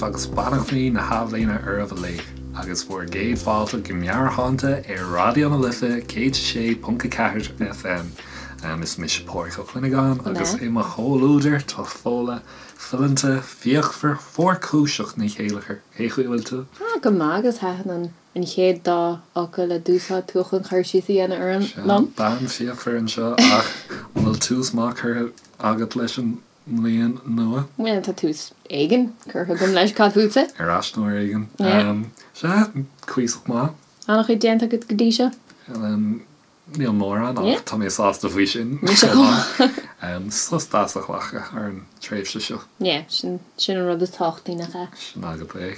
daoibh agus beannachtaí na hathbhliana oraibh uilig, agus bhur gcéad fáilte go Meabhairshláinte ar Raidió na Life 106.4 FM. Is mise Pádraig Ó Cuinneagáin agus i mo chomhluadar tá Fódhla fileanta fíochmhar fuarchúiseach Ní Chéilleachair. Cén chaoi a bhfuil tú? Ah, go maith agus thaitin an an chéad dá fhocal a d'úsáid tú chun cur síos a dhéanamh orm Sea, bean fíochmhar anseo ach an bhfuil tús maith curtha agat leis an mbliain nua? Bhuel, tá tús éigin curtha agam leis, cad fútsa? Ar ais nó ar éigean. Sea, cuíosach maith. An-chuid déanta agat go dtí seo? Níl mórán, ach tá mé sásta faoi sin. Mise chomh maith. Sos deas a ghlacadh ar an tréimhse seo. Yeah, sin an rud is tábhachtaí, nach ea? Sin agat é.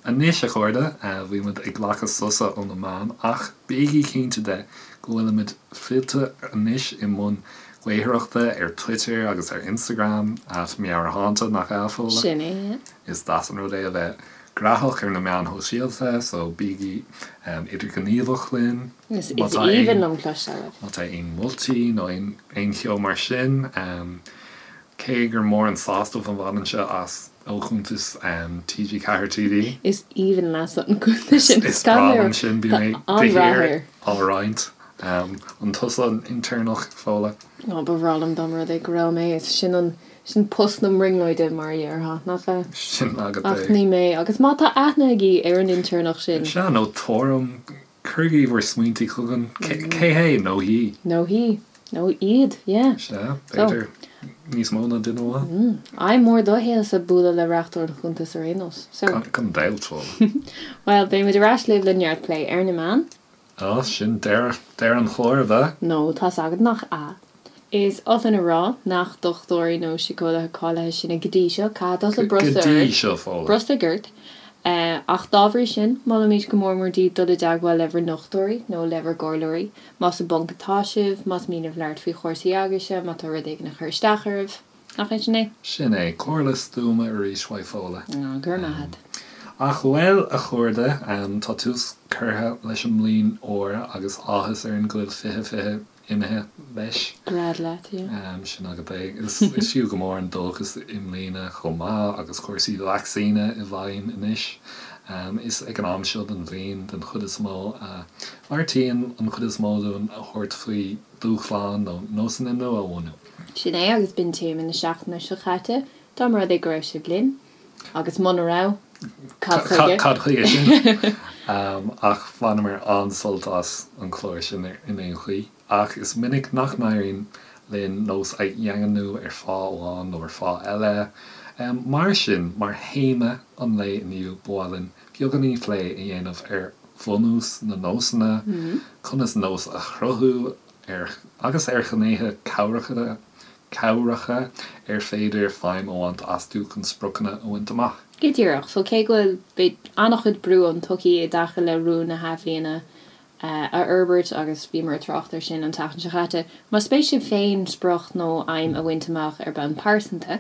Anois, a chairde, bhí muid ag glacadh sosa ó na meáin, ach bígí cinnte de go bhfuilimid fillte anois i mbun gaothaireachta ar Twitter agus ar Instagram, at Meabhairshláinte, nach ea, a Fódhla? Sin é, yeah. Is deas an rud é a bheith graitheach ar na meáin shóisialta, so bígí idirghníomhach linn. Is aoibhinn liom cloisteáil uaibh. Má tá aon mholtaí nó aon cheo mar sin, cé gur mór an sásamh a bhainimse as ó chuntas TG4 TV. Is aoibhinn leatsa an cuntas sin. Is breá liom sin, bíonn mé de shíor á roinnt. An tusa an intéirneach, Fódhla? Ó, ba bhreá liom dá mba rud é go raibh mé. Is sin an, sin post na mbrionglóide, mar a déarfá, nach ea? Sin agat é. Ach ní mé. Agus má tá aithne agaibh ar an intéirneach sin. Sea, nó tuairim, cuirigí bhur smaointí chugainn. Cé hé nó hí? Nó hí. Nó iad, yeah. Sea, b'fhéidir níos mó ná duine amháin. Aidhm mhór do shaolsa bualadh le reachtaire an chuntais ar aon nós. So. Gan dabht, Fódhla. Bhuel, beidh muid ar ais libh le neart plé ar na meáin. Á, sin deireadh an chláir, ab ea? No, tá's agat nach ea. Is oth linn a rá nach dochtúirí nó síceolaithe cáilithe sinne go dtí seo, caithfidh tusa Go brostaigh dtí ort, seo, Fódhla. brostaigh ort. Ach dá bhrí sin, molaimid go mór mór daoibh dul i dteagmháil le bhur ndochtúirí nó le bhur gcomhairleoirí, más i bponc atá sibh, más mian libh labhairt faoi chúrsaí eagaise, má tá rud éigin ag cur isteach oraibh. Nach é sin é? Sin é. Comhairle stuama arís uait Fódhla. Á, go raibh maith agat. Ach bhuel, a chairde, tá tús curtha leis an mbliain úr agus áthas orainn go bhfuil 2020 imithe leis. Gread leat, yeah. Sin agat é. Is fiú go mór an dóchas i mbliana chomh maith agus cúrsaí vacsaíne i bhfeidhm anois. Is ag an am seo den bhliain, den chuid is mó, a bheartaíonn an chuid is mó dúinn a thabhairt faoi dúshláin nó nósanna nua a bhunú. Sin é, agus b'in téama na seachtaine seo caite, dá mba rud é go raibh sibh linn. Agus muna raibh, cad chuige? Cad chuige sin? Ach bhaineamar an-sult as an chlár sin in aon chaoi. Ach is minic nach n-éiríonn linn nós a dhaingniú ar fáth amháin nó ar fáth eile. Mar sin, mar théama an lae inniu, ba mhaith linn beagáinín plé a dhéanamh ar bhunús na nósanna, conas nós a chruthú, ar agus ar ghnéithe cabhracha cabhracha ar féidir feidhm a bhaint astu chun spriocanna a bhaint amach. Go díreach. So cé go bhfuil, beidh an-chuid brú ón tsochaí i dtaca le rúin na hathbhliana a fhorbairt agus bhíomar ag trácht air sin an tseachtain seo caite, más spéis libh féin sprioc nó aidhm a bhaint amach ar bhonn pearsanta,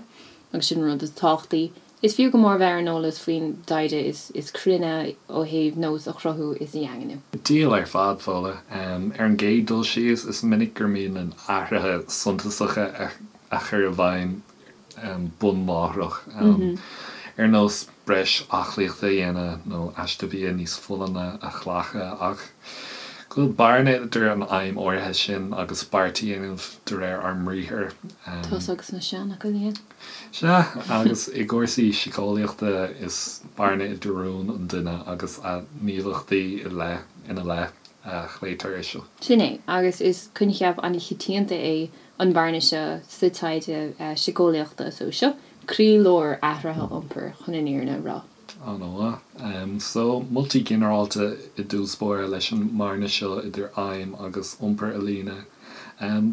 agus sin an rud is tábhachtaí, Is fiú go mór bheith ar an eolas faoin dtaighde is cruinne ó thaobh nós a chruthú is a dhaingniú. Diabhal ar fad, Fódhla. Ar an gcéad dul síos, is minic gur mian linn athruithe suntasacha a chur i bhfeidhm bun láithreach, ar nós breis aclaíochta a dhéanamh nó aiste bia níos folláine a ghlacadh, ach go bhfuil bearna idir an aidhm áirithe sin agus beart a dhéanamh de réir ár mbriathair. Tusa agus na seanfhocail, yeah. Sea, agus i gcúrsaí síceolaíochta is bearna idir rún an duine agus a ghníomhaíochtaí i leith, ina leith, a ghlaotar air seo. Sin é, agus is coincheap an-choitianta é an bhearna seo sa taighde síceolaíochta, so seo croílár athraithe iompair, chun an fhírinne a rá. An-mhaith. So, moltaí ginearálta i dtús báire leis an mbearna seo idir aidhm agus iompar a líonadh.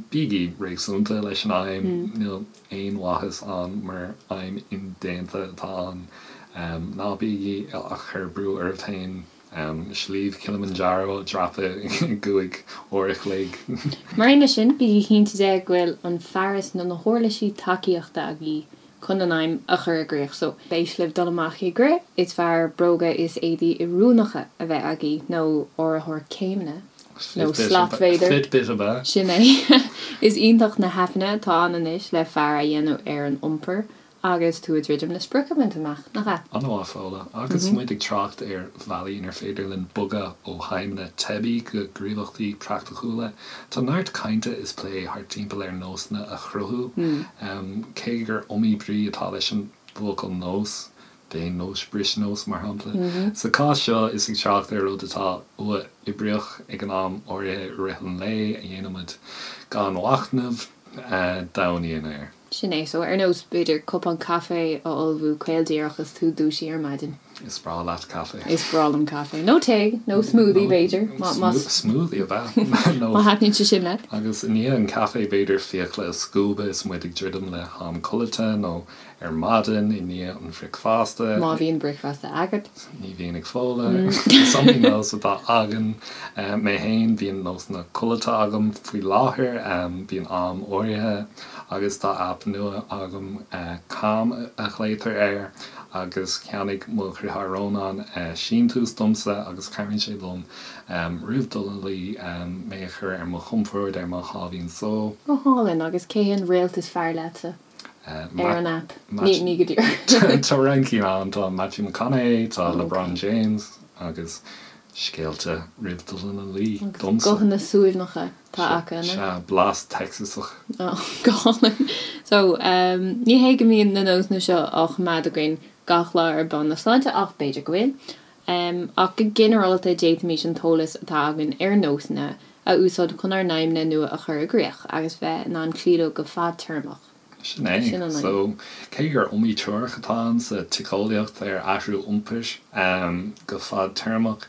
Bígí réasúnta leis an aidhm, níl aon mhaitheas ann mura aidhm indéanta atá ann. Ná bígí ag cur brú oraibh féin Sliabh Kilimanjaro a dhreapadh i gcúig uair a chloig. Mar aon leis sin, bígí cinnte de go bhfuil an fearas nó na huirlisí tacaíochta agaibh chun an aidhm a chur i gcrích. So, spéis libh dul amach ag rith, is fearr bróga is éadaí oiriúnacha a bheith agaibh, nó áiritheoir céimeanna, nó slat b'fhéidir. Fitbit ab ea? Sin é. Is iontach na haipeanna atá ann anois le faire a dhéanamh ar an iompar. Agus tú ag druidim le sprioc a bhaint amach, nach ea? An-mhaith, Fódhla. Agus muid ag trácht ar bhealaí inar féidir linn bogadh ó haidhmeanna teibí go gníomhaíochtaí praiticiúla, tá neart cainte is plé thart timpeall ar nósanna a chruthú. Cé gur iomaí brí atá leis an bhfocal nós, déan nós, bris nós, mar shampla. Sa chás seo, is ag trácht ar rud atá uathoibríoch ag an am áirithe i rith an lae a dhéanaimid gan mhachnamh, domhan íon air. Sin é. So, ar nós, b'fhéidir, cupán caife a ullmhú caol díreach is tú dúisithe ar maidin. Is breá leat caife. Is breá liom caife. Nó tae, nó smoothie, b'fhéidir, má, má. Smoothie, ab ea? Nó. Má thaitníonn sé sin leat. Agus i ndiaidh an caife, b'fhéidir fiacla a scuabadh is muid ag druidim le ham codlata, nó ar maidin i ndiaidh an bhricfeasta. Má bhíonn bricfeasta agat. Ní bhíonn ag Fódhla. Is iomaí nós atá againn. Mé féin, bíonn nósanna codlata agam faoi láthair. Bíonn am áirithe agus tá aip nua agam, Calm a ghlaotar air, agus cheannaigh mo dhriotháir Rónán síntiús domsa agus cabhraíonn sé liom roimh dul a luí mé a chur ar mo chompord, ar mo sháimhín só. Go hálainn, agus cé hé an réalt is fearr leatsa? Ar an aip. Ní go díreach. Tá roinnt cinn ann, tá Matthew McConaughey, tá LeBron James agus scéalta roimh dul ina luí domsa. Guthanna suaimhneacha atá acu, an ea? Sea, blas Texasach. Ó, go hálainn. So, ní hé go mbíonn na nósanna seo á choimeád againn gach lá ar bonn na sláinte ach b'fhéidir go bhfuil. Ach go ginearálta d'fhéadfaimis an t-eolas atá againn ar nósanna a úsáid chun ár n-aidhmeanna nua a chur i gcrích agus bheith in ann cloí leo go fadtéarmach. Sin é. Sin an aidhm. So, cé gur iomaí teoiric atá ann sa tsíceolaíocht ar athrú iompair go fadtéarmach,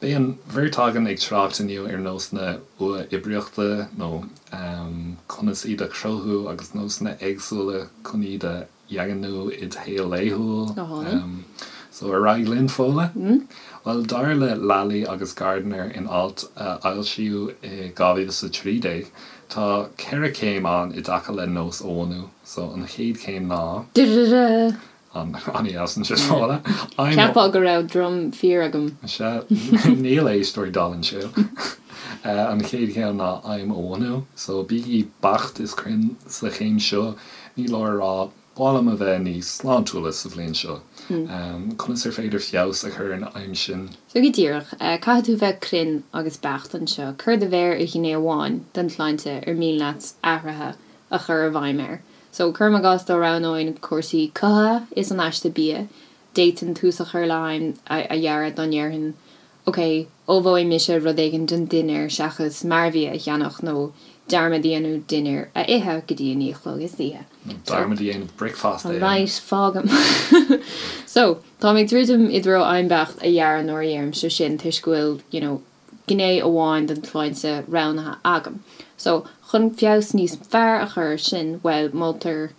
beidh an bheirt againn ag trácht inniu ar nósanna uathoibríochta nó conas iad a chruthú agus nósanna éagsúla chun iad a dhaingniú id shaol laethúil. Go hálainn. So, ar aghaidh linn, Fódhla? Bhuel, dar le Lally agus Gardner in alt a foilsíodh i 2013, tá 4 chéim ann i dtaca le nós a bhunú. So, an chéad chéim ná. Da-da-da! An-dheas ansin, Fódhla. Cheapfá go raibh drum fíor agam. Sea, níl éisteoirí dall anseo. An chéad chéim ná aidhm a bhunú. So, bígí beacht is cruinn sa chéim seo. Ní leor a rá, 'Ba mhaith liom a bheith níos sláintiúla sa bhliain seo. Conas ar féidir feabhas a chur ar an aidhm sin? So go díreach, caithfidh tú bheith cruinn agus beacht anseo. Cuir do mhéar ar ghné amháin den tsláinte ar mian leat athruithe a chur i bhfeidhm air. So, cuirim i gcás dá roghnóinn cúrsaí cothaithe is an aiste bia, d'fhéadfainn tús a chur le haidhm a dhearadh dá ndéarfainn, Ok, ullmhóidh mise rud éigin don dinnéar seachas mearbhia a cheannach nó dearmad a dhéanamh dinnéar a ithe go dtí a 9 a chlog istoíche. Nó dearmad a dhéanamh bricfeasta a ithe. Right, fágaim. So, táim ag druidim i dtreo aidhm beacht a dhearadh nuair a dheirimse sin toisc go bhfuil, you know, gné amháin den tsláinte roghnaithe agam. So, chun feabhas níos fearr a chur air sin, bhuel, moltar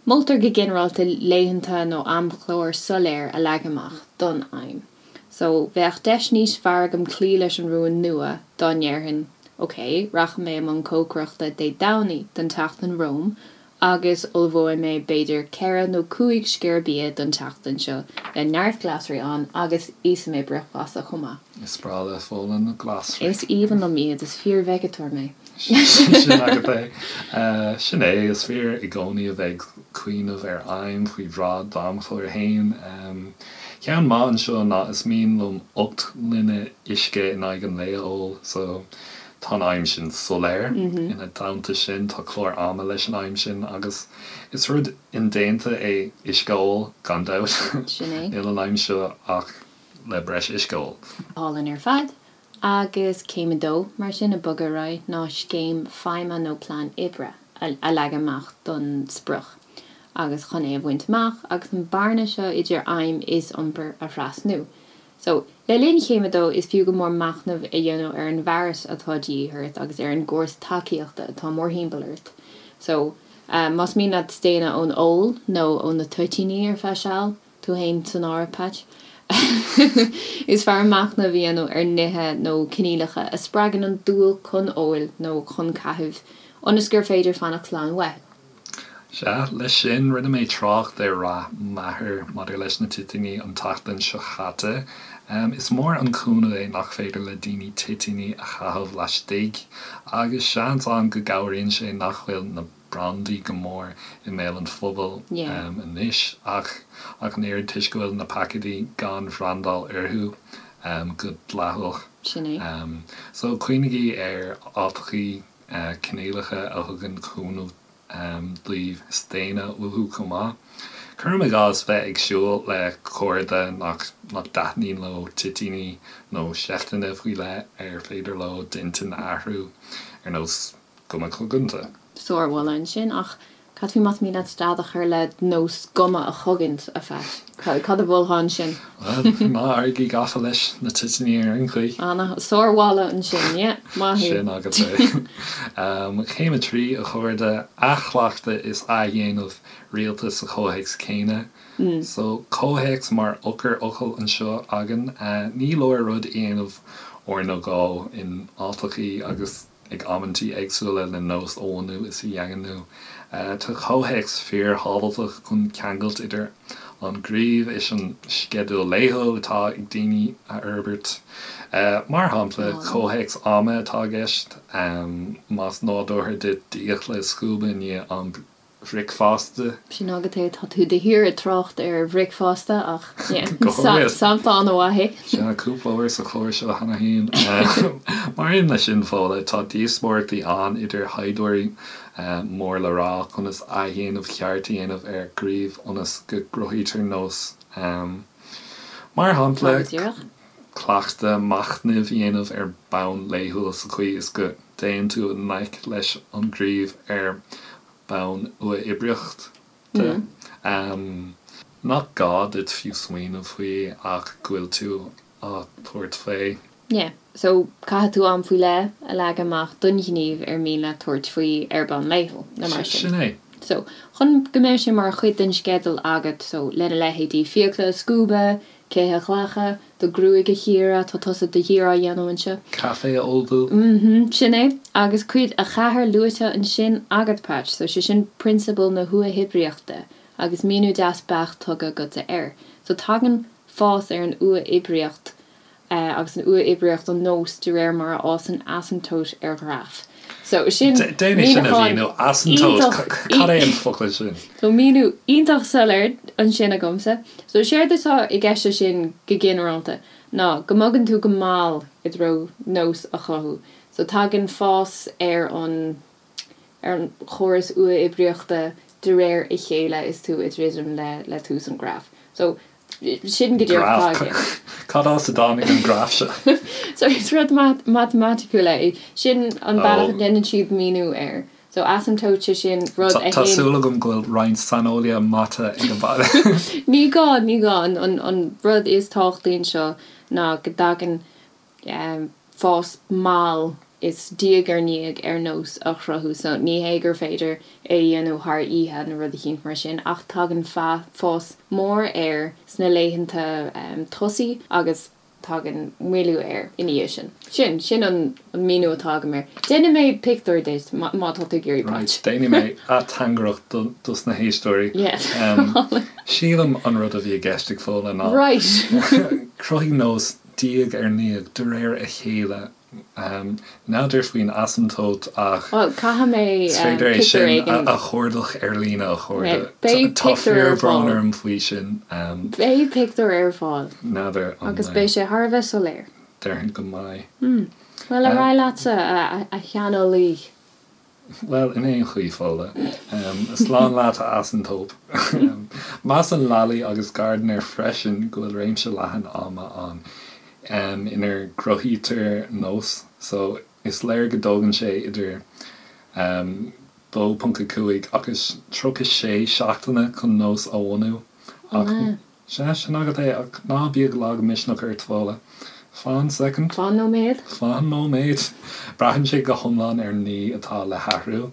Moltar go ginearálta laethanta nó amchlár soiléir a leagan amach don aidhm. So, bheadh deis níos fearr agam cloí leis an rún nua dá ndéarfainn, ok, rachaidh mé i mbun cócaireachta Dé Domhnaigh don tseachtain romham agus ullmhóidh mé b'fhéidir 4 nó 5 sciar bia don tseachtain seo le neart glasraí ann agus íosfaidh mé bricfeasta chomh maith. Is breá le Fódhla na glasraí. Is aoibhinn liom iad, is fíor-veigeatóir mé. Sin agat é. Sin é, is fíor i gcónaí a bheith ag cuimhneamh ar aidhm faoi bhráid d'amchláir féin. Ceann maith anseo ná is mian liom 8 ngloine uisce in aghaidh an lae a ól, so tá an aidhm sin soiléir. Ina theannta sin, tá clár ama leis an aidhm sin agus is rud indéanta é uisce a ól, gan dabht. Sin é. Níl an aidhm seo ach le breis uisce a ól. Álainn ar fad. Agus céim a dó, mar sin, ag bogadh ar aghaidh, ná scéim feidhme nó plean oibre a leagan amach don sprioc agus chun é a bhaint amach agus an bearna seo idir aidhm is iompar a thrasnú. So, le linn chéim a dó, is fiú go mór machnamh a dhéanamh ar an bhfearas atá de dhíth ort agus ar an gcóras tacaíochta atá mórthimpeall ort. So, más mian leat staonadh ón ól nó ó na toitíní ar feadh seal, Tú fhéin san áireamh, Patch. Is fearr machnamh a dhéanamh ar nithe nó coinníollacha a spreagann an dúil chun óil nó chun caithimh, ionas gur féidir fanacht slán uathu. Sea, leis sin, rinne mé trácht ar rath m'athar maidir leis na toitíní an tseachtain seo chaite. Is mór an cúnamh é nach féidir le daoine toitíní a chaitheamh laistigh, agus seans ann go gcabhraíonn sé nach bhfuil na. brandaí go mór i mbéal an phobail anois ach ach an oiread toisc go bhfuil na paicéidí gan bhrandáil orthu go dleathach. Sin é. So cuimhnígí ar áiteachaí cineálacha a thugann cúnamh daoibh staonadh uathu chomh maith. Cuirim i gcás bheith ag siúl le cairde nach dtaitníonn leo toitíní nó seifteanna faoi leith ar féidir leo d'intinn a athrú, ar nós guma coganta. Sármholadh ansin, ach cad faoi más mian leat stad a chur le nós guma a chogaint, a Phat? Cad a mholfá ansin? Bhuel, ná éirígí gafa leis na toitíní ar aon chaoi. Ana, sármholadh ansin, yeah, maith thú. Sin agat é. Céim 3, a chairde, athchleachtadh is athdhéanamh rialta sa chomhthéacs céanna. So, comhthéacs mar eochairfhocal anseo againn. Ní leor rud a dhéanamh uair nó dhó in áiteachaí agus ag amantaí éagsúla le nós a bhunú is a dhaingniú. Tá comhthéacs fíorthábhachtach chun ceangailt idir an gníomh is an sceideal laethúil atá ag daoine a fhorbairt. Mar shampla, comhthéacs ama atá i gceist, más nádúrtha duit d'fhiacla a scuabadh i ndiaidh an bhricfeasta. Sin agat é, tá tú de shíor ag trácht ar bhricfeasta ach yeah, sampla an-mhaith é. Sea, cúpla uair sa chlár seo cheana féin. Mar aon leis sin, Fódhla, tá díospóireachtaí ann idir thaighdeoirí mór le rá conas athdhéanamh ceart a dhéanamh ar ghníomh ionas go gcruthaítear nós. Mar shampla, cleachtadh machnaimh a dhéanamh ar bhonn laethúil sa chaoi is go dtéann tú i ngleic leis an ngníomh ar bhonn uathoibríoch de. Nach gá duit fiú smaoineamh faoi ach go bhfuil tú á tabhairt faoi. Yeah. So, caithfidh tú am faoi leith a leagan amach don ghníomh ar mian leat tabhairt faoi ar bhonn laethúil, nó mar sin. Sin é. So, chun go mbeidh sé mar chuid den sceideal agat, so, lena leithéidí fiacla a scuabadh, cith a ghlacadh, do ghruaig a chíoradh, tá tusa de shíor á dhéanamh anseo. Caife a ullmhú. Mm-hmm, sin é. Agus cuid a cheathair luaite ansin agat, Patch, so sé sin prionsabal na huathoibríochta agus míniú deas beacht tugtha agatsa air. So tagann fás ar an uathoibríocht agus an uathoibríocht an nós de réir mar a fhásann asamtóit ar ghraf. So sin Déan é sin a míniúchán mhíniú. Asamtóit, iontach, cad é an focal sin? So míniú iontach soiléir ansin agamsa. So séard atá i gceist leis sin go ginearálta ná go mbogann tú go mall i dtreo nós a chothú. So tagann fás ar an ar an chóras uathoibríochta de réir a chéile is tú ag druidim le le tús an graf. So sin go díreach atá i gceist. Cad as a dtáinig an graf seo? So is rud matamaiticiúil é. Sin an bealach a ndéanann siad míniú air. So asamtóit sé sin rud a théann. Tá súil agam go bhfuil roinnt saineolaithe mata ag an baile. Ní gá, ní gá. An rud is tábhachtaí anseo ná go dtagann fás mall is diaidh ar ndiaidh ar nós a chruthú. So ní hé gur féidir é a dhéanamh thar oíche nó rud eicínt mar sin ach tagann fás mór air sna laethanta tosaigh agus tagann moilliú air ina dhiaidh sin. Sin, sin an míniú atá agam air. Déanfaidh mé pictiúr duit má tá tú ag iarraidh, Right, Patch. déanfaidh mé ateangaireacht dos na héisteoirí. Yes. Sílim an rud a bhí i gceist ag Fódhla ná Right. cruthaigh nós diaidh ar ndiaidh, de réir a chéile. N'fheadar faoin asamtóit ach Bhuel, caithfidh mé is féidir é pictiúr sin éigin. a chuardach ar líne, a chairde. Beidh Tá pictiúr ar fíorbhrón fáil. orm faoi sin. Beidh pictiúr ar fáil. N'fheadar an Agus beidh sé thar a bheith soiléir. Déarfainn go mbeidh. Bhuel, ar aghaidh leatsa, a shaineolaí. Bhuel, in aon chaoi, Fódhla, slán leat, a asamtóip. Measann Lally agus Gardner freisin go bhfuil réimse leathan ama ann inar gcruthaítear nós, so is léir go dtógann sé idir 2.5 agus 36 seachtaine chun nós a bhunú, ach Sea, sin agat é, ach ná bíodh lagmhisneach ort, Fódhla. Fan soicind. Fan nóiméad. Fan nóiméad. Braitheann sé go hiomlán ar an ní atá le hathrú.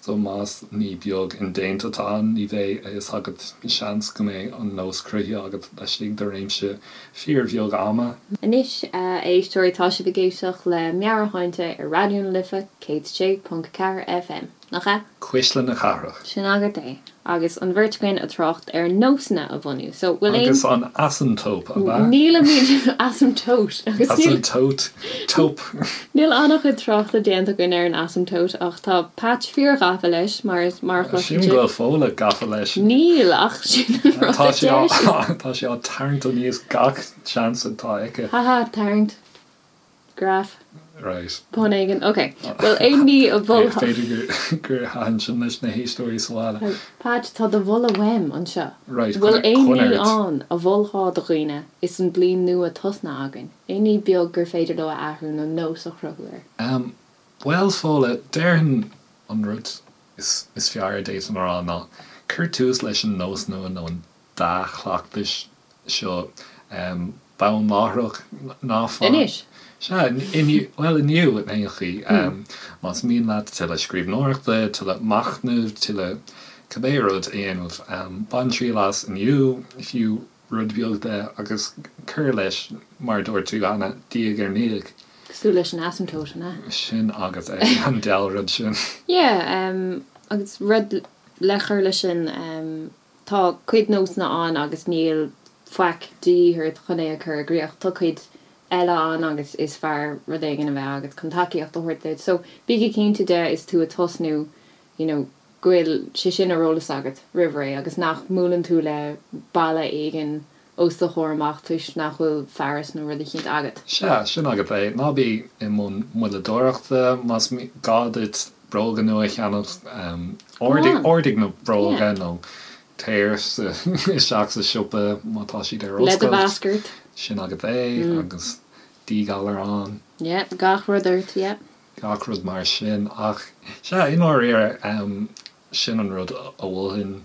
So más ní beag indéanta atá ann, ní bheidh a fhios agat, seans go mbeidh an nós cruthaithe agat laistigh de réimse fíorbheag ama. Anois, a éisteoirí, tá sibh ag éisteacht le Meabhairshláinte ar Raidió na Life 106.4 FM, nach ea? Cuisle na Cathrach. Sin agat é. Agus an bheirt againn ag trácht ar nósanna a bhunú. So, bhfuil aon. Agus an asamtóp, ab ea? Nílimid asamtóit. Agus níl. Asamtóit. Tóp. Níl an-chuid tráchta déanta againn ar an asamtóit ach tá Patch fíor-ghafa leis, mar is, mar a chloiseann Sílim sibh. go bhfuil Fódhla gafa leis. Níl, ach sin an rud Tá a sé deir á, sí. tá sé á tarraingt aníos gach seans atá aici. Haha, tarraingt. Graf. Right. Pun éigin. Ok. Bhfuil aon ní a mholfá? B'fhéidir gur thaitin sin leis na héisteoirí sa bhaile. Patch, tá do mholadh uaim anseo. Right, Bhfuil aon coinnigh ní ort. ann a mholfá do dhaoine is an bliain nua tosnaithe againn? Aon ní beag gur féidir leo a athrú nó nós a chruthú air? Em, bhuel, Fódhla, déarfainn an rud is is fearr a d'fhéadfainn a rá ná cuir tús leis an nós nua nó an dea-chleachtais seo bonn láithreach, ná fan. Anois? Sea, inniu, bhuel, inniu in aon chaoi. Más mian leat tuilleadh scríbhneoireachta, tuilleadh machnaimh, tuilleadh cibé rud a dhéanamh, bain triail as inniu, fiú rud beag de, agus cuir leis, mar a dúirt tú cheana, diaidh ar ndiaidh. Cosúil leis an asamtót, an ea? Sin agat é, an diabhal rud sin. Yeah, agus rud le cur leis sin, Tá cuid nósanna ann agus níl faic de dhíth ort chun é a chur i gcríoch. Tá cuid eile ann agus is fearr rud éigin a bheith agat chun tacaíocht a thabhairt duit. So, bígí cinnte de is tú ag tosnú, you know, go bhfuil sé sin ar eolas agat roimh ré agus nach mbuaileann tú le balla éigin os do chomhair amach toisc nach bhfuil fearas nó rud eicínt agat. Sea, sin agat é. Ná bí i mbun moilleadóireachta. Más gá duit bróga nua a cheannach, ordaigh na bróga nó téir isteach sa siopa má tá siad ar Le do oscailt. mhasc ort. Sin agat é agus díghalar ann. Yeah, gach rud ort, yeah. Gach rud mar sin. Ach, sea, i ndáiríre, Sin an rud a mholfainn,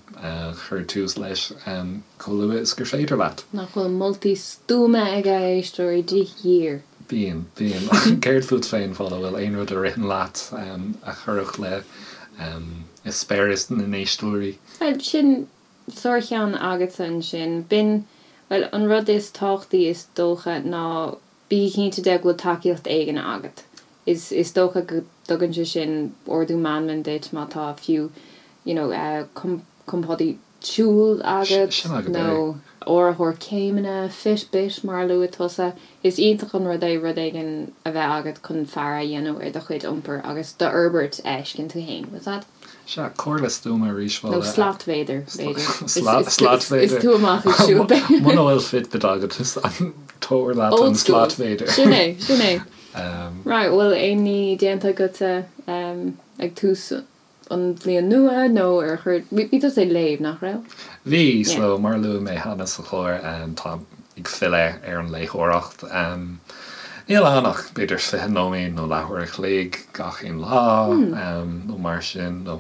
cuir tús leis chomh luath is gur féidir leat. Nach bhfuil moltaí stuama aige, a éisteoirí, de shíor. Bíonn, bíonn. Céard fút féin, Fódhla, bhfuil aon rud a ritheann leat a chuirfeadh le eispéireas na n-éisteoirí? Bhuel, sin sárcheann agatsa ansin. B'in, bhuel, an rud is tábhachtaí is dócha ná Bí cinnte de go bhfuil tacaíocht éigin agat. Is is dócha go dtugann sé sin ardú meanman duit má tá fiú you know compádaí siúil agat Sin agat é. nó áiritheoir céimeanna, Fitbit mar a luaigh tusa. Is iontach an rud é rud éigin a bheith agat chun faire a dhéanamh ar do chuid iompair agus d'fhorbairt a fheiscint tú féin. What's that? Sea, comhairle stuama arís, Nó Fódhla. slatmhéadar, b'fhéidir. Slatmhéadar. Is tú amach ag siúl. Muna bhfuil Fitbit agat, tabhair leat an Old school. slatmhéadar. Sin é, sin é. Right, bhfuil aon ní déanta agatsa ag tús an bhliain nua nó ar chuir, bhí tusa ag léamh, nach raibh? Bhí, so mar a luaigh mé cheana sa chlár, táim ag filleadh ar an léitheoireacht. Níl ann ach b'fhéidir 20 nóiméad nó leathuair a chloig gach aon lá nó mar sin, nó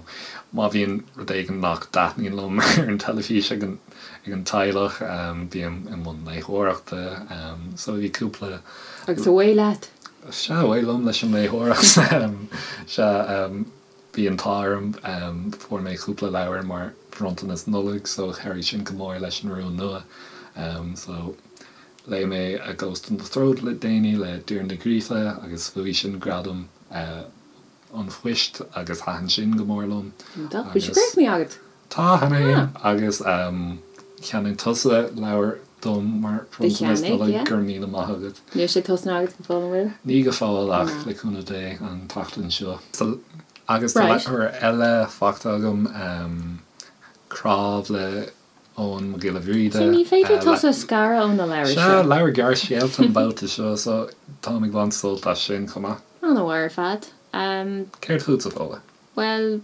má bhíonn rud éigin nach dtaitníonn liom ar an teilifís ag an ag an teaghlach, bím i mbun léitheoireachta. So bhí cúpla. Agus away leat! Sea, away liom leis an léitheoireacht. Sea, bhí an t-ádh orm, fuair mé cúpla leabhar mar bhronntanas Nollag so chabhraigh sin go mór leis an rún nua. So. Léigh mé A Ghost in the Throat le déanaí le Doireann Ní Ghríofa agus bhuaigh sin gradam an phoist agus thaitin sin go mór liom. Iontach. Bhfuil sé críochnaithe agat? Tá, cheana féin. Agus cheannaigh tusa leabhar dom mar bhronntanas Nollag, go raibh míle maith agat. Níl sé tosnaithe agat go fóill, an bhfuil? Ní go fóill ach le cúnamh Dé an tseachtain seo. Agus tá leabhar eile faighte agam, Cnámh le Eoghan Mac Giolla Bhríde. Sea, ní féidir tusa a scaradh ó na leabhair seo. Sea, leabhar gearrscéalta an babhta seo, so táim ag baint sult as sin chomh maith. An-mhaith ar fad. Céard fútsa, Fódhla? Bhuel,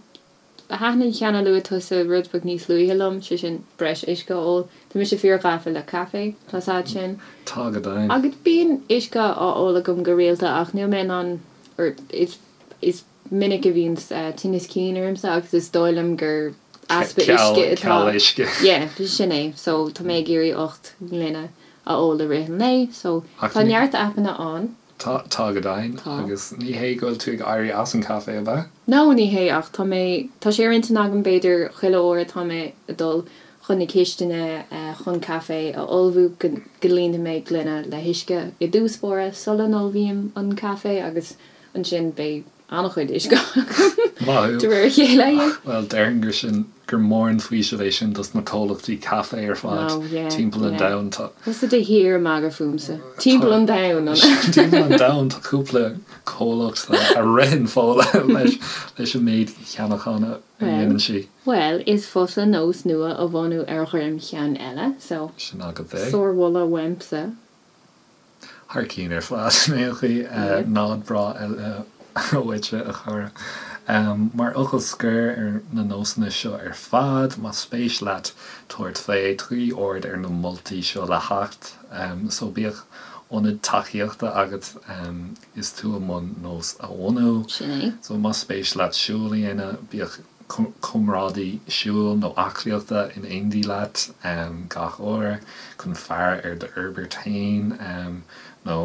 thaitin an ceann a luaigh tusa rud beag níos luaithe liom, sé sin breis uisce a ól. Tá mise fíor-ghafa le caife, tá 's a'd sin. Tá go deimhin. Agus bíonn uisce á ól agam go rialta ach níl mé in ann, or is, is minic a bhíonn tinneas cinn ormsa agus is dóigh liom gur easpa uisce atá. Ceal uisce. Yeah, sin é. So tá mé ag iarraidh 8 ngloine a ól i rith an lae. So tá neart aipeanna ann. Tá, tá go deimhin. Tá. Agus ní hé go bhfuil tú ag éirí as an caife, ab ea? No, ní hé ach tá mé, tá sé ar intinn agam b'fhéidir chuile uair atá mé ag dul chun na cistine chun caife a ullmhú go líonfaidh mé gloine le huisce i dtús báire sula n-ullmhaím an caife agus ansin beidh. An-chuid uisce agam de réir a chéile, yeah. Bhuel, déarfainn gur sin, gur mór an faoiseamh é sin dos na comhlachtaí caife ar fad timpeall an domhain. Tá. Tusa de shíor ag magadh fúmsa. Timpeall an domhain, an ea? Timpeall an domhain tá cúpla comhlacht a ritheann Fódhla leis leis an méid cheannachán a dhéanann sí. Bhuel, is fusa nós nua a bhunú ar dhroim cheann eile, so. Sin agat é. Sármholadh uaimse. Thar cinn ar fad in aon chaoi. Nod breá eile uaitse, a chara. Mar fhocal scoir ar na nósanna seo ar fad, más spéis leat tabhairt fé, tugaigí aird ar na moltaí seo le theacht. So bíodh ionad tacaíochta agat is tú i mbun nós a bhunú. Sin é. So más spéis leat siúl a dhéanamh, bíodh. comrádaí siúil nó aclaíochta in éindí leat gach uair chun faire ar d'fhorbairt féin nó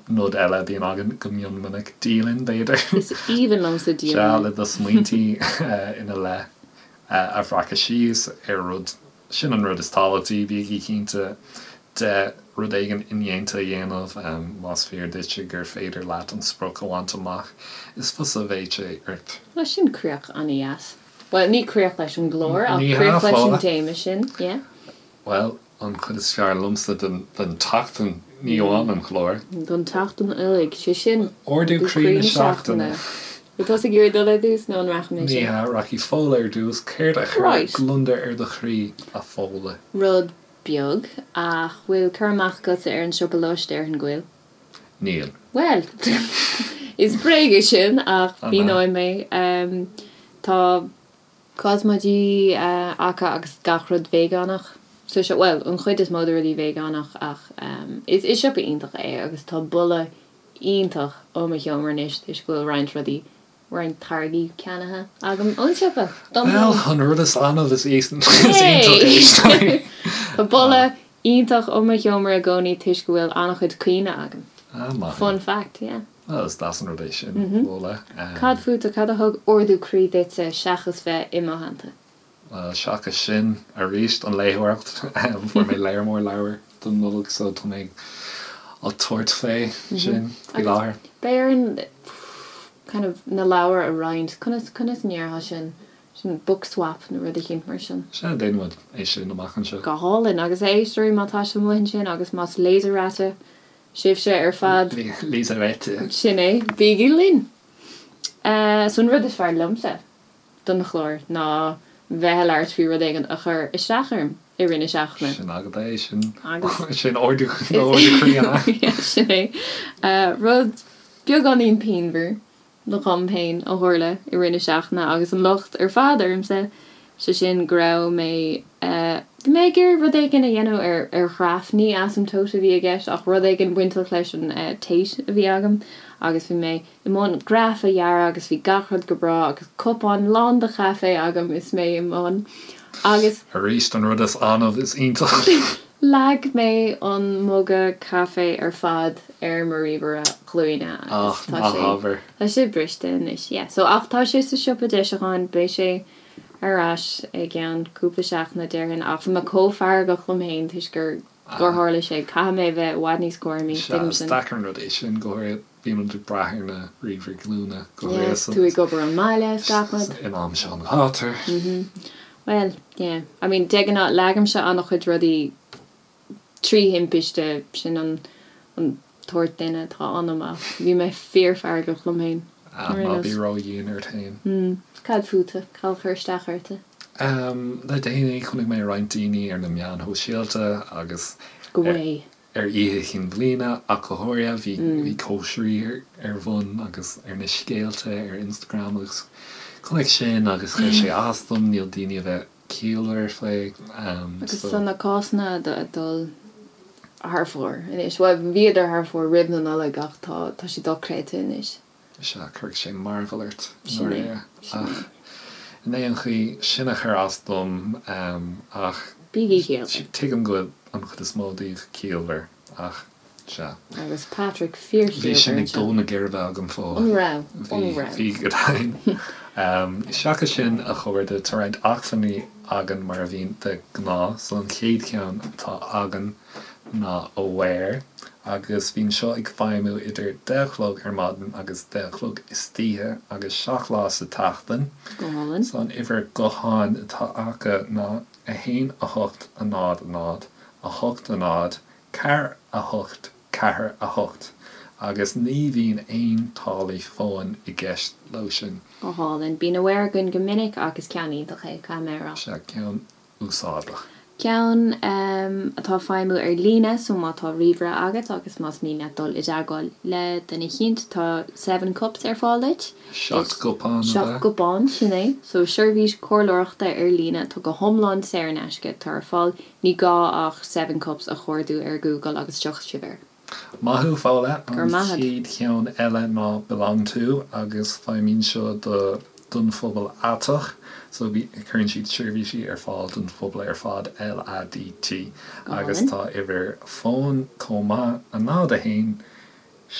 nod eile a bhíonn againn go mion minic, dialann, b'fhéidir. Is aoibhinn liomsa dialann. Sea, le do smaointí ina leith a bhreacadh síos ar rud Sin an rud is tábhachtaí, bígí cinnte de rud éigin indéanta a dhéanamh. Más fíor duitse gur féidir leat an sprioc a bhaint amach, is fusa a bheidh sé ort. Bhuel, sin críoch an-dheas. Bhuel, ní críoch leis an gclár, ach críoch leis an téama sin, yeah. Bhuel, an chuid is fearr liomsa den tseachtain, ní amháin an clár. Don tseachtain uilig, sé sin, Ardú croí na seachtaine. Bhfuil tusa ag iarraidh dul ar dtús nó an rachaidh mise? Ní hea, rachaidh Fódhla ar dtús. Céard a chuir gliondar ar do chroí, a Fhódhla? Rud beag, ach bhfuil cur amach agatsa ar an siopa Lush, déarfainn go bhfuil. Níl. Bhuel, is bréag é sin, ach míneoidh mé. Tá cosmaidí acu agus gach rud veigeánach sa siopa, bhuel, an chuid is mó de rudaí veigeánach ach is siopa iontach é agus tá boladh iontach ó mo sheomra anois toisc go bhfuil roinnt rudaí, roinnt táirgí ceannaithe agam ón siopa dom féin. Bhuel, an rud is annamh is iontach é. Tá boladh iontach ó mo sheomra i gcónaí toisc go bhfuil an-chuid caoine agam. Ah, maith. Fun fact, yeah. Bhuel, is deas an rud é sin, Fódhla. Cad fútsa, cad a thug ardú croí duitse seachas bheith i mo theannta? Bhuel, seachas sin, arís, an léitheoireacht, fuair mé lear mór leabhar don Nollaig so tá mé ag tabhairt fé sin faoi láthair. Beidh orainn kind of na leabhair a roinnt, conas, conas a ndéarfá sin, sin book swap nó rud eicínt mar sin. Sea, déanfaidh muid é sin amach anseo. Go hálainn, agus a éisteoirí má tá sibh amuigh ansin agus más Leserate sibhse ar fad. Leserate. Sin é, bígí linn! So an rud is fearr liomsa. don chlár ná bheith ag labhairt faoi rud éigin a chuir isteach orm i rith na seachtaine. Sin agat é, sin, sin ardú croí an ea? Sin é. Rud beagáinín pianmhar dhom féin a tharla i rith na seachtaine agus an locht ar fad ormsa, sé sin go raibh mé, bhí mé ag iarraidh rud éigin a dhéanamh ar ar ghraf, ní asamtóit a bhí i gceist ach rud éigin bainteach leis an Tate a bhí agam agus bhí mé i mbun graf a dhearadh agus bhí gach rud go breá agus cupán lán de chaife agam is mé i mbun agus. Arís, an rud is annamh is iontach. Leag mé an muga caife ar fad ar mo ríomhaire glúine agus tá sé, tá sé briste anois, yeah. So, ach tá sé sa siopa deisiúcháin, beidh sé ar ais i gceann cúpla seachtaine déarfainn ach bhí mé chomh feargach liom féin toisc gur, gur tharla sé. Caithfidh mé a bheith i bhfad níos cúramaí, Sea, tuigim is sin. deacair an rud é sin, go háirithe. Bíonn muid ag brath ar na ríomhairí glúine go Yeah, háirithe tú ag obair ón mbaile is gach rud. in am seo an ghátair. Bhuel, yeah. I mean, de ghnáth, leagaimse an-chuid rudaí trí thimpiste, sin an an tsórt duine atá ionam ach bhí mé fíorfheargach liom féin. Ah, ná bí ródhian ort féin. Mm. Cad fútsa? Cad a chuir isteach ortsa? Le déanaí, chonaic mé roinnt daoine ar na meáin shóisialta agus Go way. Ar Oíche Chinn Bliana ach go háirithe, bhí cóisirí ar bun agus ar na scéalta ar Instagram agus chonaic sin agus chuir sé as dom, níl daoine a bheith ciallmhar faoi. Agus tá na cásanna ag dul thar fóir anois. Bhuel, bhíodar thar fóir roimh na Nollag ach tá tá siad dochreidte anois. Sea, cuirfidh sé mearbhall ort, i ndáiríre. Ach in aon chaoi, sin a chuir as dom. Ach Bígí ciallmhar. tuigim go bhfuil an chuid is mó daoibh ciallmhar, ach sea. Agus Patrick fíorchiallmhar Bhí sin ag dó na geirbe agam, Fódhla. An raibh? An raibh? Bhí, go deimhin. Seachas sin, a chairde, tá roinnt acmhainní againn mar a bhíonn de ghnáth. So an chéad cheann atá againn. ná Aware agus bíonn seo ag feidhmiú idir 10 a chlog ar maidin agus 10 a chlog istoíche agus 7 lá sa tseachtain. Go hálainn. So an uimhir gutháin atá acu ná 1 8 0 0 8 0 4 8 4 8 agus ní bhíonn aon táillí fóin i gceist leo sin. Go hálainn. Bíonn Aware againn go minic ach is ceann iontach é, caithfidh mé a rá. Sea, ceann úsáideach. Ceann atá ag feidhmiú ar líne so má tá ríomhaire agat agus más mian leat dul i dteagmháil le duine eicínt tá Seven Cups ar fáil duit. Seacht gcupán, ab ea? Seacht gcupán, sin é. So seirbhís comhairleoireachta ar líne atá go hiomlán saor in aisce atá ar fáil. Ní gá ach Seven Cups a chuardú ar Google agus tiocfaidh sibh air. Maith thú, Fódhla. An chéad cheann eile ná Belong To agus feidhmíonn seo do don phobal aiteach so cuireann siad seirbhísí ar fáil don phobal ar fad, LADT, agus tá uimhir fóin chomh maith, 0 1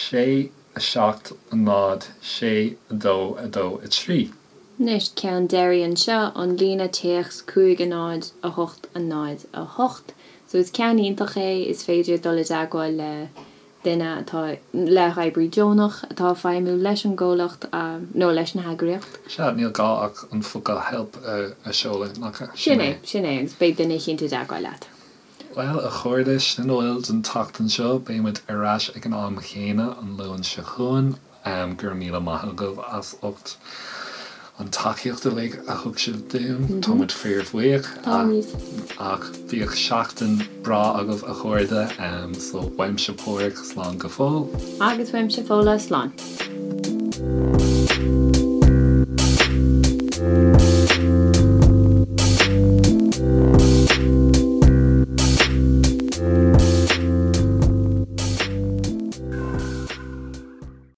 6 7 0 6 2 2 3. Anois, ceann deiridh anseo, an líne téacs 5 0 8 0 8. So is ceann iontach é, is féidir dul i dteagmháil le duine atá, le hoibrí deonach atá ag feidhmiú leis an gcomhlacht nó leis an heagraíocht. Sea, níl gá ach an focal help a sheoladh, nach ea? Sin é, sin é, agus beidh duine eicínt i dteagmháil leat. Bhuel, a chairde, sin a bhfuil don tseachtain seo. Beidh muid ar ais ag an am chéanna an Luan seo chugainn. Go raibh míle maith agaibh as ucht an tacaíocht uilig a thug sibh dúinn. Tá muid fíorbhuíoch. Táimid. Ach bíodh seachtain breá agaibh a chairde. So uaimse Páraic, slán go fóill. Agus uaimse Fódhla, slán.